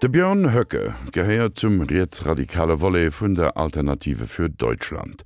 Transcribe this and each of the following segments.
De Björn Höcke gehéiert zum rietsradikale Volet vun der Alternative für Deutschland.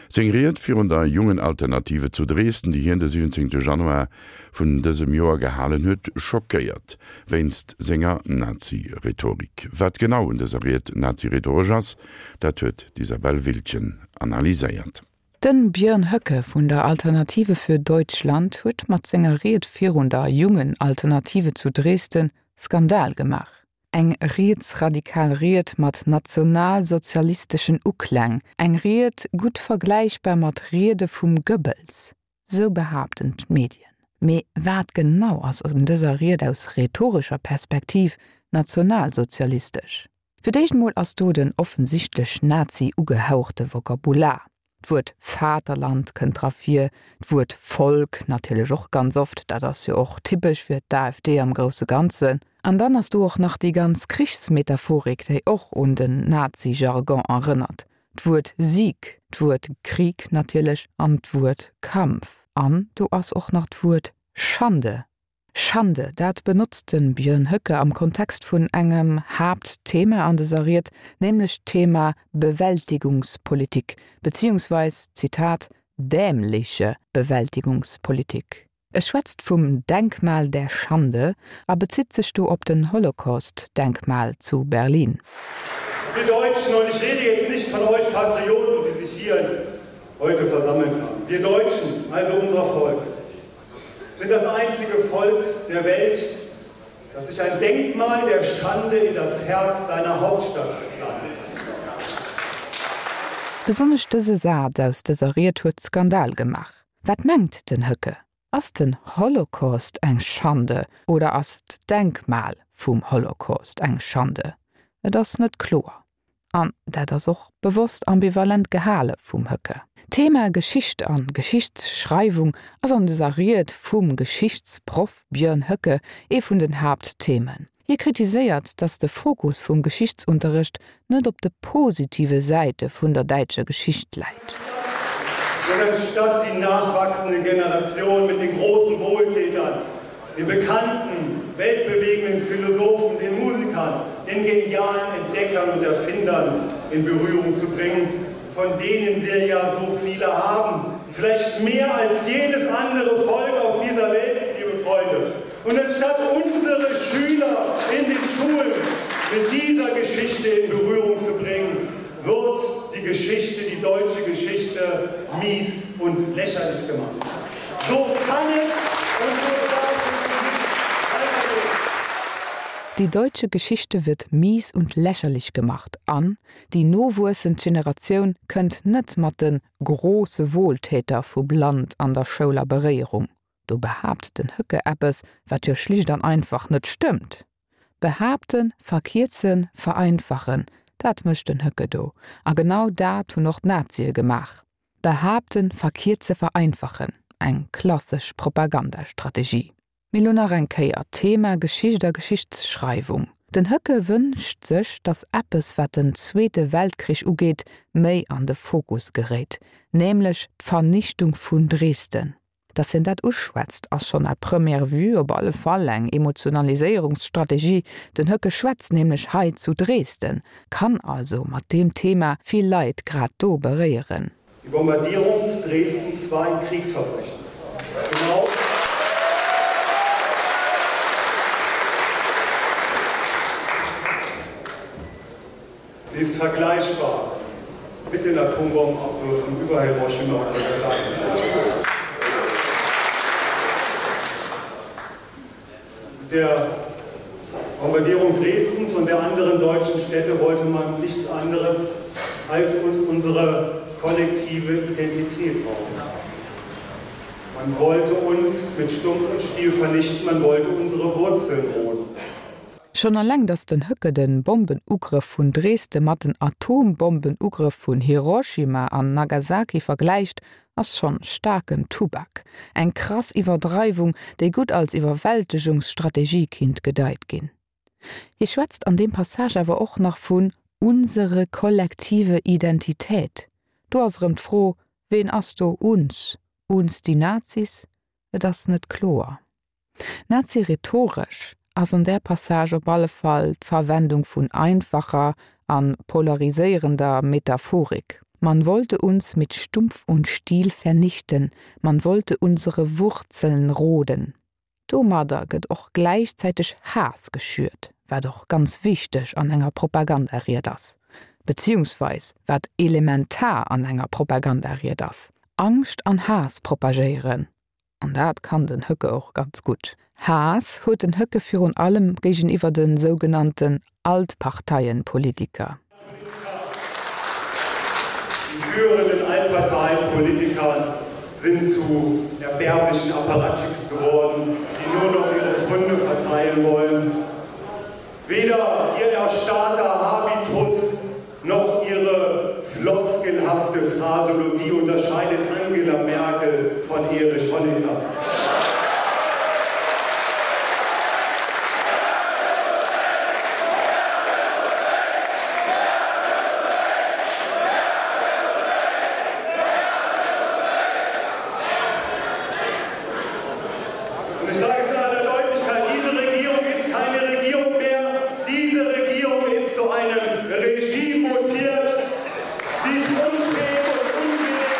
Seng Ried virun der Jungen Alternative zu Dresden, déi hien de 17 Januar vun dësem Joer gehalen huet, schockéiert wéinst senger Nazi-Rhetorik. Wat genau un dëser Ried nazi-rhetoresch ass, dat huet d'Isabelle Wildgen analyséiert. Den Björn Höcke vun der Alternative für Deutschland huet mat senger Ried virun der Jungen Alternative zu Dresden Skandal gemaach. Eng rietsradikal Ried mat nationalsozialisteschen Ukläng, eng Ried gutt vergläichbar mat Riede vum Goebbels, sou behaapten d'Medien. Mee wat genau ass un dëser Ried aus rhetorescher Perspektiv nationalsozialistesch? Fir d'éischt mol ass do den offensichtlech Nazi-ugehauchte Vokabular. D'Wuert Vaterland kënnt dra vir, d'Wuert Volk natierlech och ganz oft, dat ass jo och typesch fir d'AfD am grousse Ganzen. An dann ass do och nach déi ganz Krichsmetaphorik, déi och un den Nazi-Jargon erënnert, d'Wuert Sieg, d'Wuert Krieg natierlech an d'Wuert Kampf. An do ass och nach d'Wuert Schande Schande, dat benotzt de Björn Höcke am Kontext vun engem Haaptthema an dëser Ried, nämlech d'Thema Bewältigungspolitik, beziehungsweis, Zitat, dämliche Bewältigungspolitik. E schwätzt vum Denkmal der Schande a bezitt sech do op den Holocaust-Denkmal zu Berlin. Wir Deutschen, und ich rede jetzt nicht von euch Patrioten, die sich hier heute versammelt haben, wir Deutschen, also unser Volk, sind das einzige Volk der Welt, das sich ein Denkmal der Schande in das Herz seiner Hauptstadt gepflanzt hat. Besonnesch dëse Saz aus dëser Ried huet Skandal gemaach. Wat mengt den Höcke? Ass den Holocaust eng Schande oder ass d'Denkmal vum Holocaust eng Schande? Et ass net kloer. An dat ass och bewosst ambivalent gehale vum Höcke. D'Thema Geschicht an Geschichtsschreiwung ass an dëser Ried vum Geschichtsproff Björn Höcke ee vun den Haaptthemen. Hie kritiséiert, datt de Fokus vum Geschichtsunterrecht net op de positive Säite vun der däitscher Geschicht läit. Und anstatt die nachwachsende Generation mit den großen Wohltätern den bekannten, weltbewegenden Philosophen, den Musikern, den genialen Entdeckern und Erfindern in Berührung zu bringen, von denen wir ja so viele haben, vielleicht mehr als jedes andere Volk auf dieser Welt, liebe Freunde. Und anstatt unsere Schüler in den Schulen mit dieser Geschichte in Berührung zu bringen, wird die Geschichte, die deutsche Geschichte mies und lächerlich gemacht. So kann es und so darf es nicht weitergehen. Die deutsche Geschichte wird mies und lächerlich gemacht an déi nowuessend Generatioun kënnt net mat de große Wohltäter vum Land an der Schoul a Beréierung. Do behaapt den Höcke eppes, wat jo schlicht an einfach net stëmmt. Behaapten, verkierzen, vereinfachen, dat mécht den Höcke do. A genau dat hunn och d'Nazie gemaach. Behaapten, verkierze, vereinfachen, eng klassesch Propagandastrategie. Mee lo nach eng Kéier, Thema Geschicht a Geschichtsschreiwung. Den Höcke wënscht sech, datt eppes, wat den Zweete Weltkrich ugeet, méi an de Fokus geréit, nämlech d'Vernichtung vun Dresden. Dass hien dat uschwätzt, ass schonn à première vue op alle Fall eng Emotionaliséierungsstrategie. Den Höcke schwätzt nämlech hei zu Dresden, kann also mat deem Thema vill Leit grad do beréieren. Die Bombardierung Dresdens war ein Kriegsverbrechen. Genau. Sie ist vergleichbar mit den Atombombenabwürfen über Hiroshima und Nagasaki. Mit der Bombardierung Dresdens und der anderen deutschen Städte wollte man nichts anderes als uns unsere kollektive Identität rauben. Man wollte uns mit Stumpf und Stiel vernichten, man wollte unsere Wurzeln roden. Schonn alleng, datt den Höcke de Bombenugrëff vun Dresde mat den Atombombenugrëff vun Hiroshima an Nagasaki vergläicht, ass schonn staarken Tubak. Eng krass Iwwerdreiwung, déi gutt als Iwwerwältegungsstrategie kinnt gedeit ginn. Hie schwätzt an deem Passage awer och nach vun unsere kollektive Identität. Do ass erëm d'Fro, Ween ass do uns? Uns die Nazis? Et ass net kloer. Nazi-rhetoresch. ass an där Passage op alle Fall d'Verwendung vun einfacher an polariséierender Metaphorik. Man wollte uns mit Stumpf und Stiel vernichten, man wollte unsere Wurzeln roden. Domadder gëtt och gläichzäiteg Haass geschürt, wat och ganz wichteg an enger Propagandaried ass, beziehungsweis wat elementar an enger Propagandaried ass, Angscht an Haass propagéieren. An dat kann den Höcke och ganz gutt. Haass huet den Höcke virun allem géigeniwwer de sougenannten Altparteienpolitiker. Die führenden Altparteienpolitiker sind zu erbärmlichen Apparatschicks geworden, die nur noch ihre Fründe verteilen wollen. Weder ihr erstarrter Habitus noch ihre floskelhafte Phrasologie unterscheidet Angela Merkel von Erich Honecker. Und ich sage es in aller Deutlichkeit, diese Regierung ist keine Regierung mehr. Diese Regierung ist zu einem Regime mutiert. Sie ist unfähig und unwillig.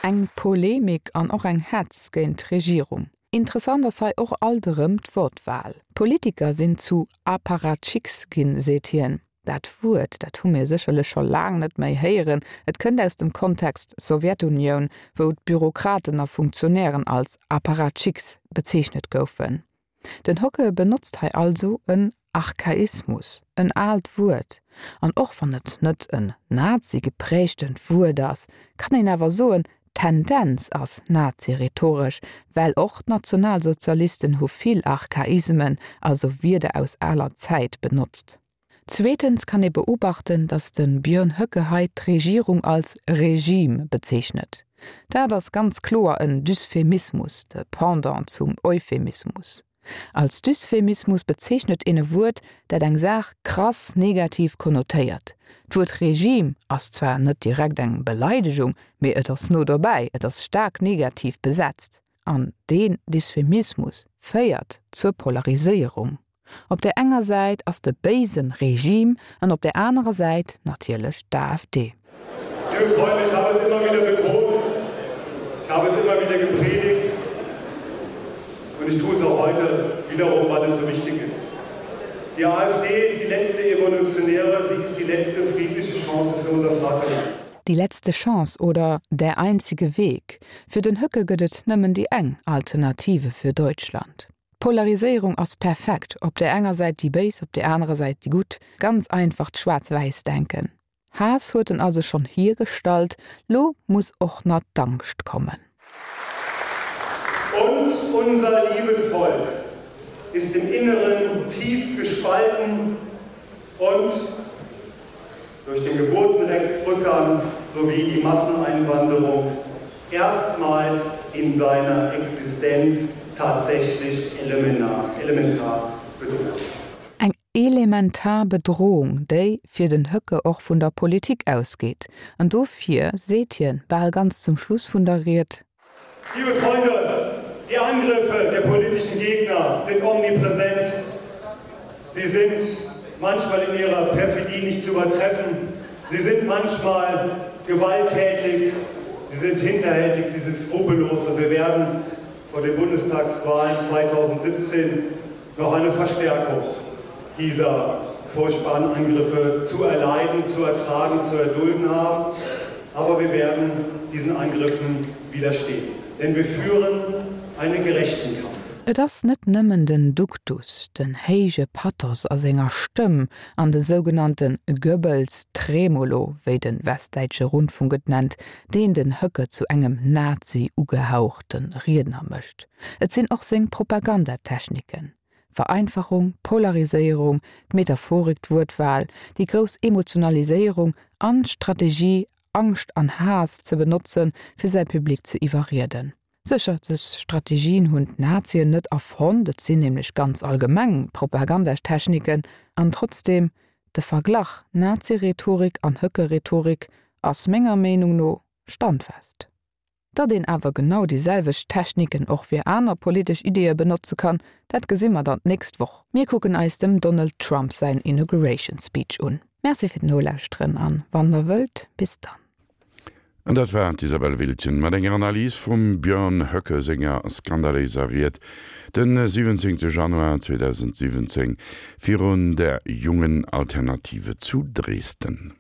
Eng Polemik an och eng Hetz géint d'Regierung. Interessant ass hei och alt erëm d'Wortwahl. D'Politiker sinn zu Apparatchiks ginn, seet hien. Dat Wuert, dat hu mir sécherlech scho laang net méi héieren. Et kënnt aus dem Kontext Sowjetunioun, wou d'Bürokraten a Funktionären als Apparatchiks bezeechnet goufen. Den Hocke benotzt hei also en Archaismus, en aalt Wuert. An och wann et net en Nazi-geprägtent Wuert ass, kann een awer soen, d'Tendenz ass nazi-rhetoresch, well och d'Nationalsozialisten hu vill Archaismen, also Wierder aus aler Zäit, benotzt. Zweetens kann ee beobachten, datt de Björn Höcke hei d'Regierung als Regime bezeechnet. Dat ass ganz kloer en Dysphemismus, de Pendant zum Euphemismus. Als Dysphemismus bezeechnet een e Wuert, dat eng Saach krass negativ konnotéiert. D'Wuert Regime ass zwar net direkt eng Beleidegung, mee et ass no dobäi, et ass staark negativ besetzt. An deen Dysphemismus féiert zur Polariséierung. Op där enger Säit ass de béisen Regime an op där anerer Säit natierlech d'AfD. Liebe Freunde, ich habe es immer wieder betont, ich habe es immer wieder gepredigt und ich tue es auch heute wiederum, weil es so wichtig ist. Die AfD ist die letzte evolutionäre, sie ist die letzte friedliche Chance für unser Vaterland. Die letzte Chance oder der einzige Weg, Fir den Höcke gëtt et nëmmen déi eng Alternative fir Deutschland. D'Polariséierung ass perfekt, op där enger Säit déi Béis, op där anerer Säit déi Gutt. Ganz einfacht Schwaarz-Wäiss-Denken. Haass huet en also schonn hiergestallt, lo muss och na d'Angscht kommen. Und unser liebes Volk ist im Inneren tief gespalten und durch den Geburtenrückgang sowie die Masseneinwanderung erstmals in seiner Existenz tatsächlich elementar, elementar bedroht. Eng elementar Bedrohung, déi fir den Höcke och vun der Politik ausgeet. An dofir seet hien bal ganz zum Schluss vun der Ried, Liebe Freunde, die Angriffe der politischen Gegner sind omnipräsent. Sie sind manchmal in ihrer Perfidie nicht zu übertreffen. Sie sind manchmal gewalttätig, sie sind hinterhältig, sie sind skrupellos und wir werden vor den Bundestagswahlen 2017 noch eine Verstärkung dieser furchtbaren Angriffe zu erleiden, zu ertragen, zu erdulden haben. Aber wir werden diesen Angriffen widerstehen, denn wir führen einen gerechten Kampf. Et ass net nëmmen den Duktus, den héije Pathos a senger Stëmm an de sougenannte Goebbels-Tremolo, wéi de Westdäitsche Rundfunk et nennt, deen den Höcke zu engem Nazi-ugehauchte Riedner mécht. Et sinn och seng Propagandatechniken, Vereinfachung, Polariséierung, d'Metaphorik, d'Wuertwahl, déi grouss Emotionaliséierung an d'Strategie, Angscht an Haass ze benotzen, fir säi Public ze iwwerrieden. Sécher, dës Strategien hunn d'Nazien net erfonnt, et sinn nämlech ganz allgemeng Propagandatechniken, an trotzdeem, de Verglach Nazi-Rhetorik an Höcke-Rhetorik ass menger Meenung no standfest. Datt een awer genau déi selwecht Techniken och fir aner politesch Ideeë benotze kann, dat gesi mer dann d'nächst Woch. Mir kucken eis dem Donald Trump säin Inauguration Speech un. Merci fir d'Nolauschteren an wann der wëllt, bis dann. An dat war d'Isabelle Wiltgen mat enger Analys vum Björn Höcke senger skandaléiser Ried de 17 Januar 2017 virun der Jungen Alternative zu Dresden.